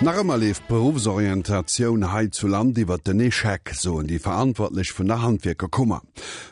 Nach ëmmer leeft d'Beruffsorientatioun hei zu Land iwwert den Echec, soen déi Verantwortlech vun der Handwierkerkummer.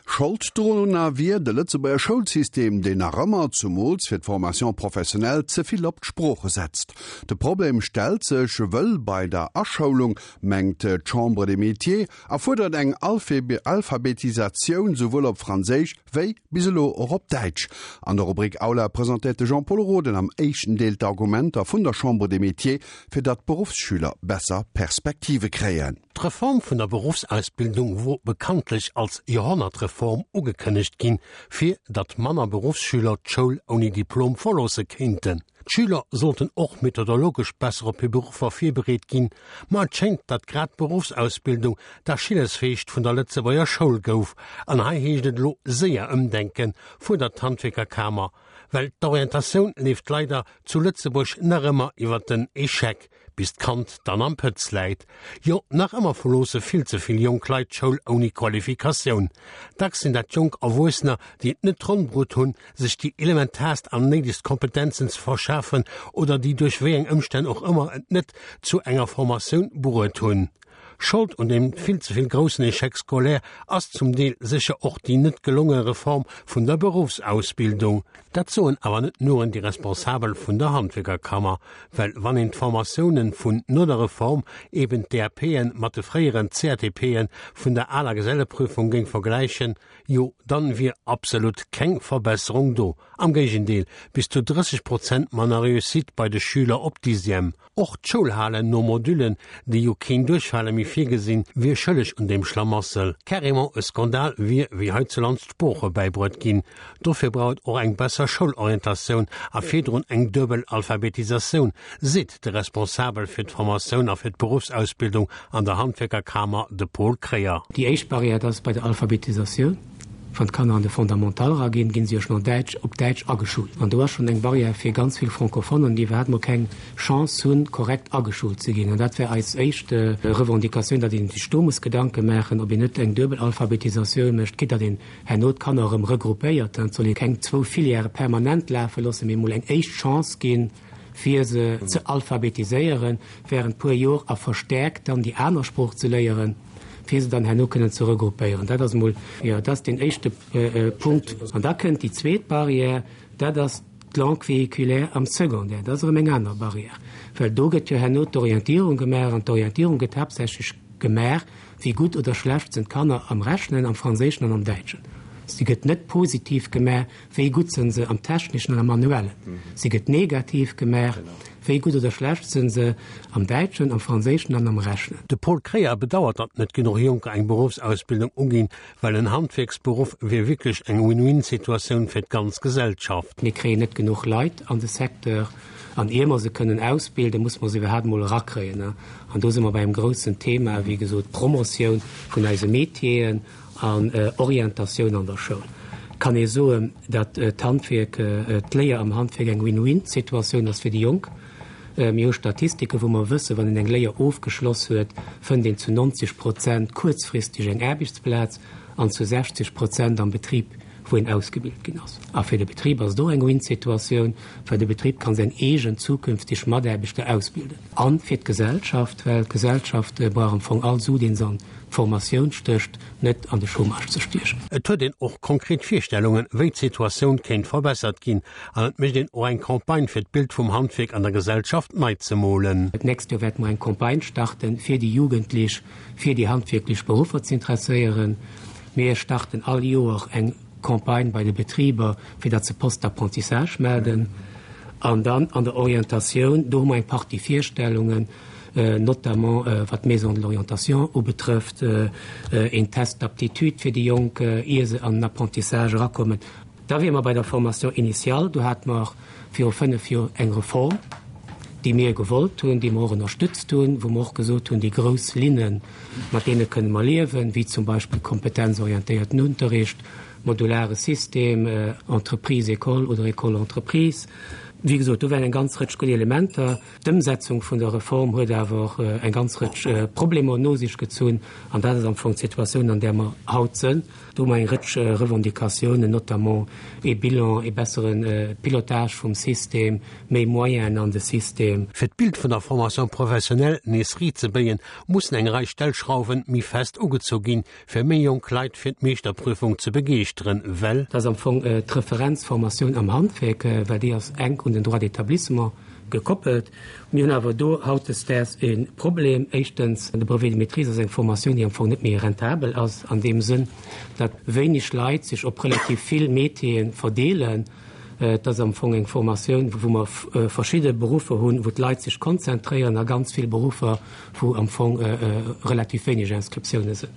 Schold dorunner wier de Lëtzebuerger Schoulsystem, deen nach ëmmer, zumools fir d'Formation professionnelle, ze vill op d'Sprooche setzt. De Problem stellt sech wëll bei der Aschoulung, mengt d'Chambre des Métiers, a fuerdert eng Alphabetisatioun souwuel op Franséisch wéi bis elo och op Däitsch. An der Rubrik Aula presentéiert de Jean-Pol Roden am éischten Deel d'Argumenter vun der Chambre des Métiers, fir datt d'Beruffsschüler besser Perspektive kréien. D'Reform vun der Beruffsausbildung wor bekanntlech als Joerhonnertreform ugekënnegt ginn, fir datt manner Beruffsschüler d'Schoul ouni Diplom verloosse kéinten. D'Schüler sollten och methodologesch besser op hir Beruffer virbereet ginn, ma et schéngt, datt grad d'Beruffsausbildung d'Achillesfeescht vun der Lëtzebuerger Schoul gouf. An hei heescht et elo séier ëmdenken, fuerdert d'Handwierkerkamer, well d'Orientatioun leeft leider zu Lëtzebuerg nach ëmmer iwwer den Echec. Bis d'Kand dann am Pëtz läit. Jo, nach ëmmer verloosse vill ze vill jonk Leit d'Schoul ouni Qualifikatioun. Dacks sinn dat jonk Erwuessener, déi et net ronn brutt hunn, sech déi elementaarst an néidegst Kompetenzen ze verschafen oder déi duerch wéi eng Ëmstänn och ëmmer et net zu enger Formatioun bruet hunn. Schold un deem vill ze vill groussen Échec scolaire ass zum Deel sécher och déi net gelonge Reform vun der Beruffsausbildung. Dat soen awer net nuren déi Responsabel vun der Handwierkerkammer, well wann een d'Formatiounen vun no der Reform, eben d'DAPen, mat de fréieren CATPen vun der aler Geselleprüfung géing vergläichen, jo dann wier absolut keng Verbesserung do, am Géigendeel, bis zu 30 Prozent manner Réussite bei de Schüler op Dixième. Och d'Schoulhalen no Modullen, déi jo keen Duerchfale méi virgesinn, wier schëlleg un deem Schlamassel. Carrément e Skandal wier, wéi heizulands d'Sprooche bäibruet ginn. Dofir brauch et och eng besser Schoulorientatioun a virdrun eng duebel Alphabetisatioun, seet de Responsabel fir d'Formatioun a fir d'Beruffsausbildung an der Handwierkerkamer, de Paul Kreyer. Déi éischt Barrière, dat ass bei der Alphabetisatioun. Wann d'Kanner an de Fondamental eraginn, ginn se jo schonn an Däitsch, op Däitsch ageschult. An do ass schonn eng Barrière fir ganz vill Francophonen, déi iwwerhaapt mol keng Chance hunn, korrekt ageschult ze ginn. An dat wär eis éischt Revendicatioun, datt een sech do muss Gedanke maachen, ob een net eng duebel Alphabetisatioun mécht, quitte datt een herno d'Kanner erëm regroupéiert. Et soll ee keng zwou Filièrë permanent lafe loossen, mee emol eng éischt Chance ginn, fir se ze alphabetiséieren während puer Jor a verstärkt dann déi aner Sprooch ze léieren, fir se dann herno kënnen ze regroupéieren. Dat ass emol, jo, dat ass deen éischte Punkt. An da kënnt déi zweet Barrière, dat ass d'Langue véhiculaire am Secondaire. Dat ass erëm eng aner Barrière, well do gëtt jo herno d'Orientierung gemaach an d'Orientierung gëtt haaptsächlech gemaach, wéi gutt oder schlecht sinn d'Kanner am Rechnen, am Franséischen an am Däitschen. Si gëtt net positiv gemaach, Wéi gutt sënn se am Techneschen an am Manuellen? Si gëtt negativ gemaach. Wéi gutt oder schlecht sënn se am Däitschen, am Franséischen an am Rechnen? De Paul Kreyer bedauert, datt net genuch Jonker eng Beruffsausbildung uginn, well en Handwierksberuff wier wierklech eng Win-win-Situatioun fir d'ganz Gesellschaft. Mir kréien net genuch Leit an de Secteur an ier mer se kënnen ausbilden, muss mer se iwwerhaapt emol erakréien. An do si mer bei engem groussen Thema, wéi gesot, d'Promotioun vun eise Métieren. An Orientatioun an der Schoul kann ee soen, datt d'Handwierk, d'Léier am Handwierk eng Win-win-Situatioun ass fir déi Jonk. Mir hu Statistiken, wou mer wëssen, wann een eng Léier ofgeschloss huet, fënnt een zu 90 Prozent kuerzfristeg eng Aarbechtsplaz an zu 60 Prozent am Betrib, wou een ausgebilt ginn ass. A fir de Betrib ass et och eng Win-Situatioun, well de Betrib kann seng eegen zukünfteg Mataarbechter ausbilden. A fir d'Gesellschaft, well d'Gesellschaft brauch am Fong all Su, dee se an d'Formatioun stécht, net an de Chômage ze stiechen. Et huet een och konkret Virstellungen, wéi d'Situatioun kéint verbessert ginn. An et mécht een och eng Campagne, fir d'Bild vum Handwierk an der Gesellschaft nei ze molen. D'nächst Joer wäerte mer eng Campagne starten, fir déi Jugendlech fir déi handwierklech Beruffer ze interesséieren. Mir starten all Joer eng Campagne bei de Betriber, fir datt se Postes d'apprentissage melden. An dann an der Orientatioun, do hu mer eng Partie Virstellungen, notamment wat d'Maison de l'orientation ubetrëfft, een Test d'aptitude fir déi Jonk, ier se an den Apprentissage erakommen. Da wiere mer bei der Formation initiale. Do hate mer viru 5 Joer eng Reform, déi mir gewollt hunn, déi mer och ënnerstützt hunn, wou mer och gesot hunn, déi grouss Linnen, mat deene kënne mer liewen, wéi zum Beispill kompetenzorientéierten Unterricht, modulare System, Entreprise-École oder École-Entreprise. Wéi gesot, do waren eng ganz Rëtsch gutt Elementer. D'Ëmsetzung vun der Reform huet awer och eng ganz Rëtsch Problemer no sech gezunn. An dat ass am Fong d'Situatioun, an där mer haut sënn. Do hu mer eng Rëtsch Revendicatiounen, notamment ee Bilan, ee bessere Pilotage vum System, méi Moyenen an de System. Fir d'Bild vun der Formation professionnelle nees riit ze béien, mussen eng Rei Stellschrauwen méi fest ugezu ginn, fir méi jonk Leit fir d'Meeschterprüfung ze begeeschteren, well. Dat ass am Fong d'Referenzformatioun am Handwerk, well déi ass enk un den Droit d'établissement gekoppelt. Mir hunn awer do hautdesdaags e Problem. Éischtens, de Brevet de maîtrise ass eng Formatioun, déi am Fong net méi rentabel ass an deem Sënn, datt wéineg Leit sech op relativ vill Métiere verdeelen. Et ass am Fong eng Formatioun, wou mer verschidde Beruffer hunn, wou d'Leit sech konzentréieren a ganz vill Beruffer, wou am Fong relativ wéineg Inscriptiounen sinn.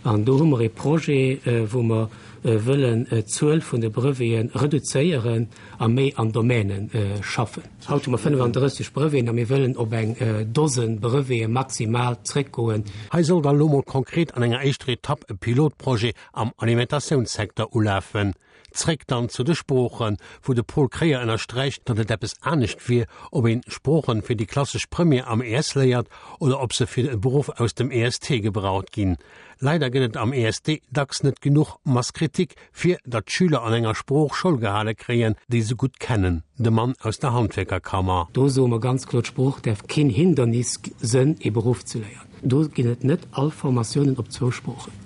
An do hu mer e Projet, wou mer wëllen d'Zuel vun de Brevete reduzéieren a méi an Domäne schaffen. Haut hu mer 35 Breveten a mir wëllen op eng Dosen Brevete maximal zréckgoen. Hei soll da lo mol konkret an enger éischter Etapp e Pilotprojet am Alimentatiounssecteur ulafen. Zréck dann zu de Sproochen, wou de Paul Kréier ënnersträicht, datt et eppes anescht wier, ob een Sproochen fir déi klassesch Première am ES léiert oder ob se fir e Beruff aus dem EST gebraucht ginn. Leider gëtt et am EST dacks net genuch Masse critique, fir datt d'Schüler an enger Sprooch Schoul gehale kréien, déi se gutt kennen. De Mann aus der Handwierkerkammer. Do soe mer ganz kloer, d'Sprooch däerf keen Hindernis sënn, ee Beruff ze léieren. Do ginn et net all Formatiounen op zwou Sproochen.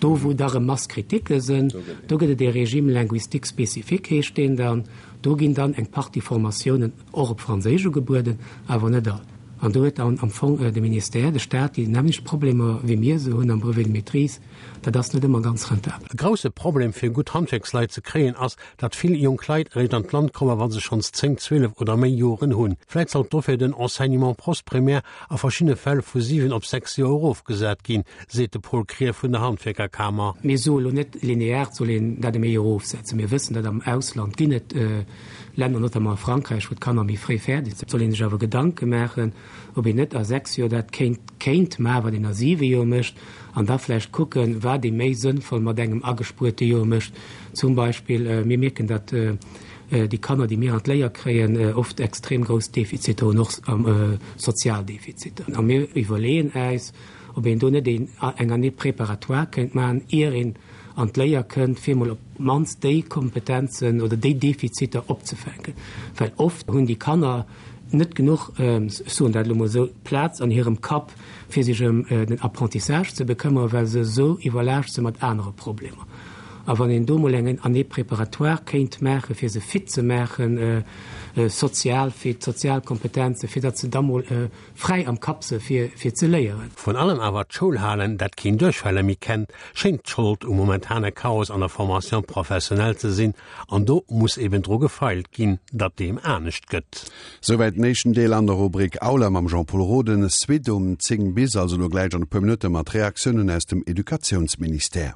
Do wou da rëm Masse critique sënn, do gëtt et ee Régime linguistique spécifique heescht deen dann. Do ginn dann eng Partie Formatiounen och op Franséisch ugebueden, awer net all. An do huet dann am Fong de Ministère, de Stat déi nämmlecht Problemer wéi mir se hunn am Brevet de maîtrise. Dat ass net ëmmer ganz rentabel. E grousse Problem fir gutt Handwierksleit ze kréien ass, datt vill jonk Leit eréischt an d'Land kommen, wa se schonns 10, 12 oder méi Joren hunn. Vläit sollt dofir den Enseignement postprimaire a verschiddene Fäll vu 7 op 6 Joer erofgesat ginn, seet de Paul Krier vun der Handwierkerkamer. Mir soe lo net, linear et soll een dat ëm ee Joer erofsetzen. Mir wëssen, datt am Ausland ginn et Länner, notamment a Frankräich, wou d'Kanner méi fréi fäerdeg sinn. Et soll ee sech awer Gedanke maachen, ob een net a 6 Joer dat kéint kéint maachen, wat een a 7 Joer mécht, an da vläicht kucken, wat ee méi sënnvoll mat engem agespuerte Joer mécht. Zum Beispill, mir mierken, datt déi Kanner, déi mir an d'Léier kréien, oft extrem grouss Defiziter hunn, och sozial Defiziter. A mir iwwerleeën äis, ob een do net een eng Année préparatoire kéint maachen, ier een an d'Léier kënnt, fir emol op d'mannst déi Kompetenzen oder déi Defiziter opzefänken. Well oft hunn déi Kanner net genuch, ech soen dat elo mol esou, Plaz an hirem Kapp, fir sech ëm den Apprentissage ze bekëmmere, well se esou iwwerlaascht si mat anere Problemer. A wann een do mol eng Année préparatoire kéint maachen, fir se fit ze maachen, sozial fit, sozial Kompetenzen, fir datt se da mol fräi am Kapp se fir fir ze léieren. Vrun allem awer d'Schoulhalen, dat keen Duerchfälle méi kennt, schéngt d'Schold um momentane Chaos an der Formation professionnelle ze sinn, an do muss eben dru gefeilt ginn, datt deem anescht gëtt. Souwäit den éischten Deel an der Rubrik Aula mam Jean-Pol Roden. Suite um 10 bis, also elo gläich an e puer Minutte mat Reaktiounen aus dem Educatiounsministère.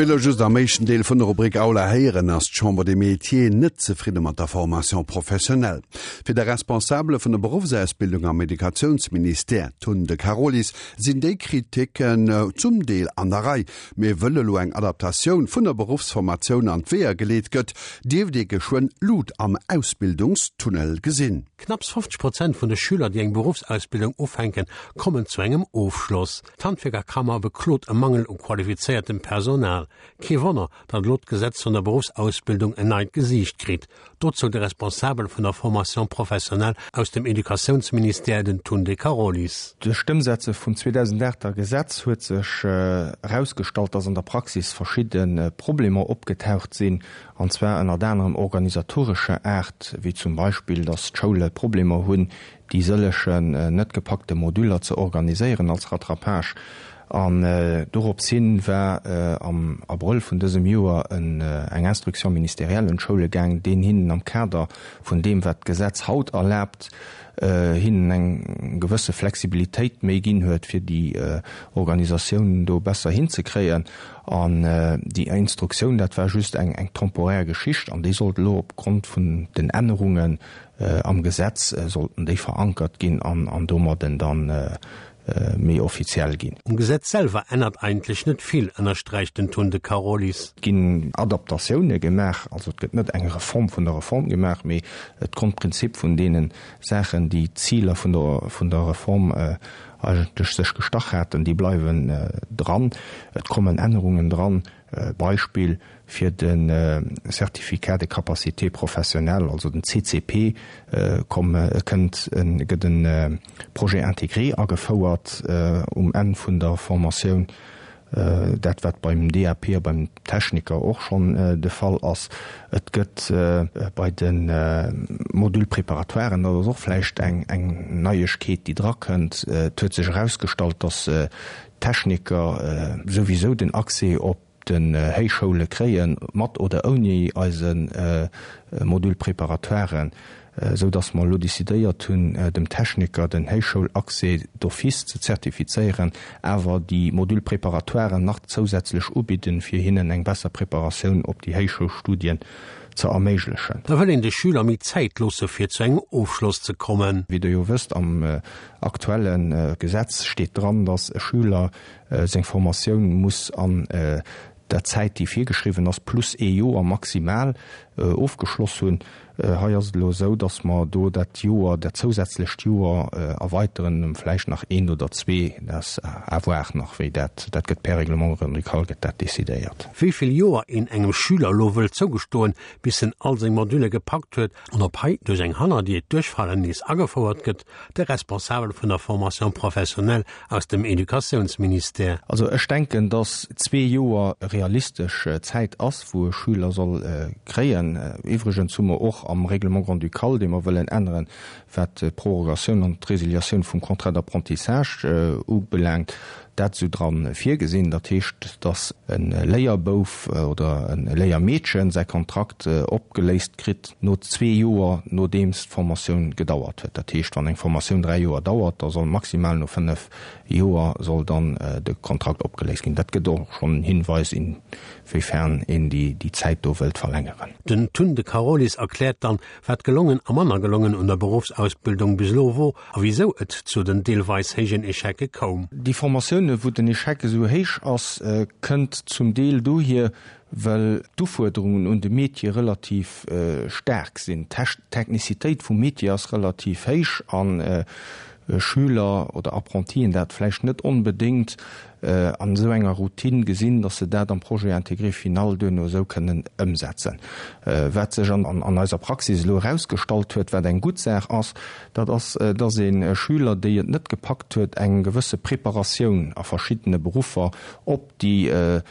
Wéi elo just am éischten Deel vun der Rubrik Aula héieren, ass d'Chambre des Métiers net zefridde mat der Formation professionnelle. Fir de Responsabele vun der Beruffsausbildung am Educatiounsministère, Tun de Carolis, sinn déi Kriticken zum Deel an der Rei. Mee wëll elo eng Adaptatioun vun der Beruffsformatioun an d'Weeër geleet gëtt, dierft ee geschwënn Lut am Ausbildungstunnel gesinn. Knapps 50 Prozent vun de Schüler, déi eng Beruffsausbildung ufänken, kommen zu engem Ofschloss. D'Handwierkerkammer beklot e Mangel u qualifizéiertem Personal. Kee Wonner, datt elo d'Gesetz vun der Beruffsausbildung en neit Gesiicht kritt. Dozou de Responsabel vun der Formation professionnelle aus dem Educatiounsministère, den Tun De Carolis. Duerch d'Ëmsetze vum 2008 er Gesetz huet sech erausgestallt, dass an der Praxis verschidde Problemer opgetaucht sinn, an zwar ënnert anerem organisatorescher Aart, wéi zum Beispill, dass d'Schoule Problemer hunn, déi sëllegen net gepackte Moduler ze organiséieren als Rattrapage. An dorops hin war am Abrëll vun dësem Joer eng Instruction ministérielle un d'Schoule gaang, deen hinnen am Kader vun deem, wat d'Gesetz haut erlaabt, hinnen eng gewësse Flexibilitéit méi ginn huet, fir déi Organisatioun do besser hinzekréien. An déi Instruktioun, dat war just eng temporär Geschicht an déi sollt elo opgrond vun den Ännerungen Am Gesetz sollten déi verankert ginn an domadden dann méi offiziell ginn. Um Gesetz selwer ännert eigentlech net vill, ënnersträicht den Tun de Carolis. Et ginn Adaptatioune gemaach, also et gëtt net eng Reform vun der Reform gemaach, mee d'Grondprinzip vun deene Saachen, déi d'Ziler vun der Reform eigentlech sech gestach haten, déi bleiwen dran. Et kommen Ännerungen dran, Beispill fir de Certificat de capacité professionnelle, also den CCP, komm, kënnt en, gëtt e Projet intégré agefouert um Enn vun der Formatioun, dat wat beim DAP a beim Techniker och schonn de Fall ass. Et gëtt bei de Module préparatoiren, dat ass och vläicht eng Neiegkeet, déi drakënnt, et huet sech erausgestallt, dass Techniker souwisou den Accès op den Héichschoule kréien, mat oder ouni eise Module préparatoiren, esou dass mer elo décidéiert hunn, dem Techniker den Héichschoulaccès d'office ze zertifizéieren, awer déi Module préparatoiren nach zousätzlech ubidden, fir hinnen eng besser Preparatioun op déi Héichschoulstudien ze erméiglechen. Da wëll een de Schüler méi Zäit loosse fir zu engem Ofschloss ze kommen. Wéi Der jo wësst, am aktuelle Gesetz steet dran, dass e Schüler seng Formatioun muss an der Zäit, déi virgeschriwwen ass, plus ee Joer maximal ofgeschloss hunn. Hei ass et elo esou, dass mer do dat Joer, dat zousätzlecht Joer erweiteren ëm vläicht nach eent oder zwee. Dat ass à voir nach, wéi dat, dat gëtt per Règlement grand-ducal gëtt dat decidéiert. Wéi vill Joer een engem Schüler elo wëll zougestoen, bis en all seng Modülle gepackt huet, an ob hei duerch eng Hannerdier d'Duerchfallen nees agefouert gëtt, de Responsabel vun der Formation professionnelle aus dem Educatiounsministère. Also ech denken, dass zwee Joer realistesch Zäit ass, wou e Schüler soll kréien. Iwwregens hu mer och am Règlement grand-ducal, dee mer wëllen änneren, wat d'Prorogatioun an d'Résiliatioun vum Contrat d'apprentissage ubelaangt, dat esou dra virgesinn. Dat heescht, dass e Léierbouf oder e Léiermeedchen säi Kontrakt opgeléist kritt no zwee Joer, nodeems d'Formatioun gedauert huet. Dat heescht, wann eng Formatioun dräi Joer dauert, da soll maximal no fënnef Joer soll dann de Kontrakt opgeléist ginn. Dat gëtt och schonn en Hinweis, inwiefern een déi Zäit do wëllt verlängeren. Den Tun de Carolis erkläert dann, wat gelongen a manner gelongen un der Beruffsausbildung bis elo wor a wisou et zu den deelweis héijen Echecke koum. Déi Formatioune wou den Echec esou héich ass, kënnt zum Deel dohier, well d'Ufuerderungen un de Métier relativ staark sinn. D'Technicitéit vum Métier ass relativ héich an Schüler oder Apprentien dat vläicht net onbedéngt an esou enger Routine gesinn, dass se dat am Projet intégré final duerno esou kënnen ëmsetzen. Wat sech an eiser Praxis elo erausgestallt huet, wat eng gutt Saach ass, dat ass, dass ee Schüler, déi et net gepackt huet, eng gewësse Preparatioun a verschiddene Beruffer op déi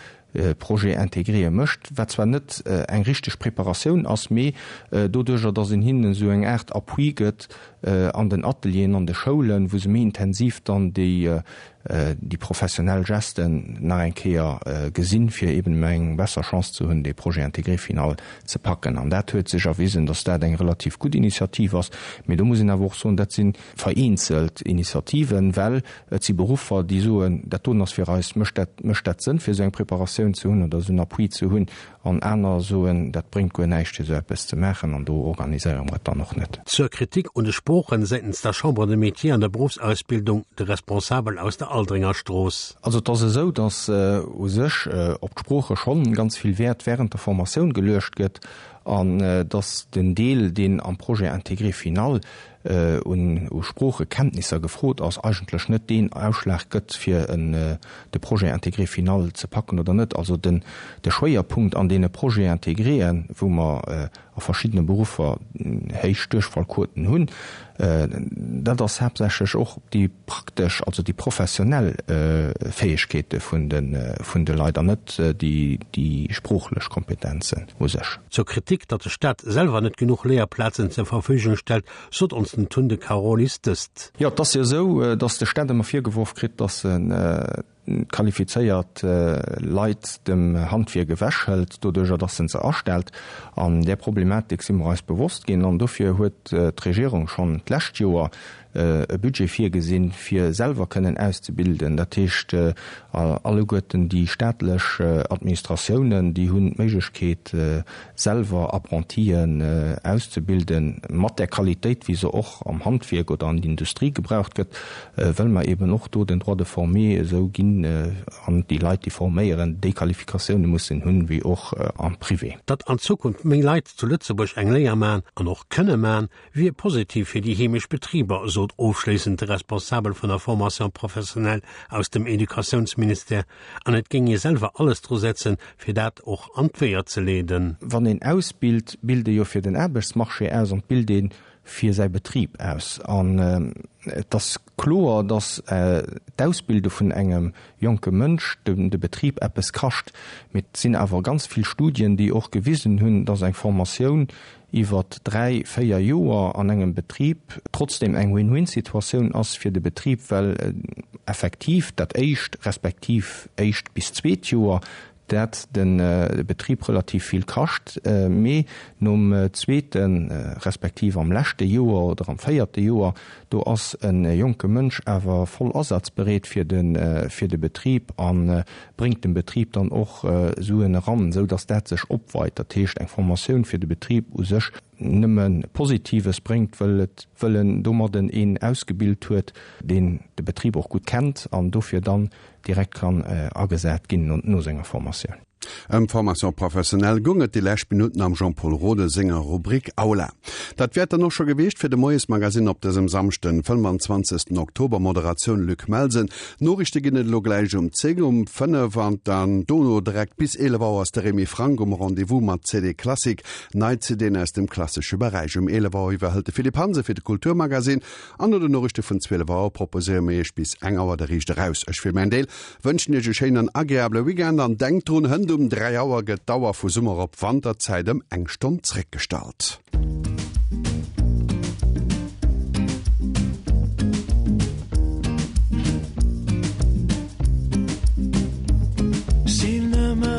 Projet intégré mécht, wat zwar net eng richteg Preparatioun ass, mee doduerjer, dass een hinnen esou eng Aart Appui gëtt an den Atelieren, an de Schoulen, wou se méi intensiv dann déi. déi professionell Gesten nach eng Kéier gesinn, fir eben eng besser Chance ze hunn, dee Projet intégré final ze packen. An dat huet sech erwisen, dass dat eng relativ gutt Initiativ ass. Mee do muss een awer och soen, dat si vereenzelt Initiativen, well et si Beruffer, déi soen, dat doen ass fir eis, mécht dat, mécht dat Sënn, fir esou eng Preparatioun ze hunn oder esou en Appui ze hunn. An aner soen, dat bréngt guer näischt, fir esou eppes ze maachen, an do organiséiere mer et dann och net. Zur Kritik un de Sproochen säitens der Chambre de Métiers an der Beruffsausbildung, de Responsabel aus der Aldringer Strooss. Also et ass esou, datt u sech op d'Sprooche schonn ganz vill Wäert während der Formatioun geluecht gëtt an datt den Deel, deen am Projet intégré final un u Sproochekenntnisser gefrot ass, eigentlech net deen Ausschlag gëtt, fir de Projet intégré final ze packen oder net. Also den de Schwéierpunkt an deene Projets intégréen, wou mer a verschiddene Beruffer héich Duerchfallquoten hunn, dat ass haaptsächlech och déi praktesch, also déi professionell Fäegkeete vun de Leit an net déi sproochlech Kompetenzen u sech. Zur Kritik, datt de Staat selwer net genuch Léierplazen zur Verfügung stellt, sot ons den Tun de Carolis dëst. Jo, et ass jo esou, datt de Staat ëmmer virgeworf kritt, datt en qualifizéiert Leit dem Handwierk ewechhëlt, doduerjer datt en se astellt. An där Problematik si mer eis bewosst ginn an dofir huet d'Regierung schonn d'lescht Joer e Budget virgesinn, fir selwer kënnen auszebilden. Dat heescht, alleguerten déi staatlech Administratiounen, déi hunn d'Méiglechkeet, selwer Apprentien auszebilden, mat där Qualitéit, wéi se och am Handwierk oder an der Industrie gebraucht gëtt, wëll mer eben och do den Droit de former esou ginn an déi Leit, déi forméieren, déi Qualifikatioune mussen hunn, wéi och am Privé. Datt an Zukunft méi Leit zu Lëtzebuerg eng Léier man an och kënne man, wier positiv fir déi heemesch Betriber, sot ofschléissend de Responsabel vun der Formation professionnelle aus dem Educatiounsministère. An et géing ee selwer alles dru setzen, fir dat och an d'Weeër ze leeden. Wann een ausbilt, bilt ee jo fir den Aarbechtsmarché aus an et bilt ee fir säi Betrib aus. An et ass kloer, datt d'Ausbilde vun engem jonke Mënsch de Betrib eppes kascht. Mee et sinn awer ganz vill Studien, déi och gewisen hunn, datt eng Formatioun iwwert 3, 4 Joer an engem Betrib trotzdem eng Win-win-Situatioun ass fir de Betrib, well effektiv dat éischt respektiv éischt bis zweet Joer dat de Betrib relativ vill kascht, mee nom zweete respektiv am leschte Joer oder am véierte Joer, do ass e jonke Mënsch awer voll asazbereet fir de Betrib a bréngt dem Betrib dann och Suen eran, esou dass dat sech opweit. Dat heescht, eng Formatioun fir de Betrib u sech nëmme Positives bréngt, wëll et, wëll en domadden een ausgebilt huet, deen de Betrib och gutt kennt an dofir dann direkt kann agesat ginn no senger Formatioun. Ëm d'Formation professionnelle goung et déi lescht Minutten am Jean-Pol Rode senger Rubrik Aula. Dat wär et dann och scho gewiescht fir de Moiesmagasinn op dësem Samschden, 25. Oktober. Moderatioun Luc Melsen. Noriichte ginn et elo gläich um 10, um 5 an dann dono direkt bis 11 Auer ass de Remy Franck um Rendez-vous mat CD Classic, nei CDen aus dem klassesche Beräich. Um 11 Auer iwwerhëlt de Philippe Hansen fir de Kulturmagasinn an no den Noriichte vun 12 Auer proposéiere mir iech bis eng Auer de Riicht eraus. Ech fir mäin Deel Wënschen iech e schéinen an agreabele Weekend an denkt drun, hënt um 3 Auer gëtt d'Auer vu Summer op Wanterzäit ëm eng Stonn zréckgestallt. S'il ne me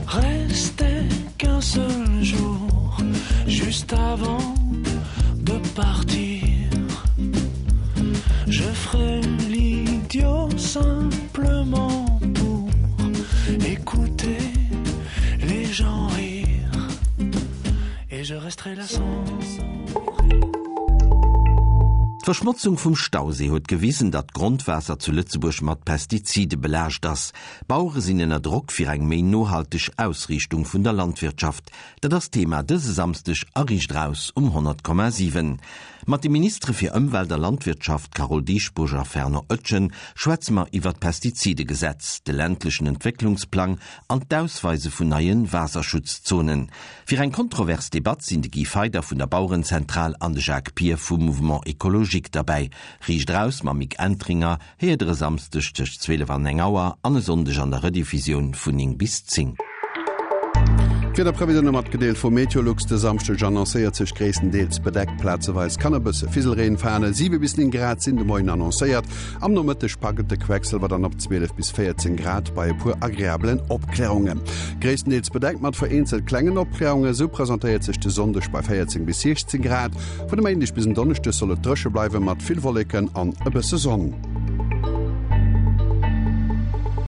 restait qu'un seul jour juste avant de partir je ferai l'idiot simplement pour écouter les gens rire et je resterai là sans D'Verschmotzung vum Stausee huet gewisen, datt d'Grondwaasser zu Lëtzebuerg mat Pestizide belaascht ass. D'Bauere sinn ënner Drock fir eng méi nohalteg Ausriichtung vun der Landwirtschaft. Dat ass d'Thema dëse Samsdeg a Riicht Eraus um 100,7. Mat de Ministere fir Ëmwelt a Landwirtschaft Carole Dieschbourg a Fernand Oetjen schwätze mer iwwer d'Pestizidegesetz, de ländlechen Entwécklungsplang an d'Ausweise vun neie Waasserschutzzonen. Fir eng kontrovers Debatt sinn de Guy Feyder vun der Bauerenzentral an de Jacques Pir vum Mouvement Ecologique derbäi. Riicht Eraus mam Mick Entringer Héiert der e Samsdeg tëscht 12 an eng Auer an e Sonndeg an der Rediffusioun vun 9 bis 10. D'Wiederprevisioune matgedeelt vu Meteolux, De Samschdeg annoncéiert sech gréisstendeels bedeckt, plazeweis kann e bësse Fiselreen falen. 7 bis 9 Grad sinn de Moien annoncéiert. Am Nomëtteg packt et de Quecksëlwer dann op 12 bis 14 Grad bei e puer agreabelen Opklärungen. Gréisstendeels bedeckt mat vereenzelt klengen Opklärungen, esou presentéiert sech de Sonndeg bei 14 bis 16 Grad. Vun e Méindeg bis en Donneschdeg soll et dréche bleiwe mat vill Wolleken an e bësse Sonn.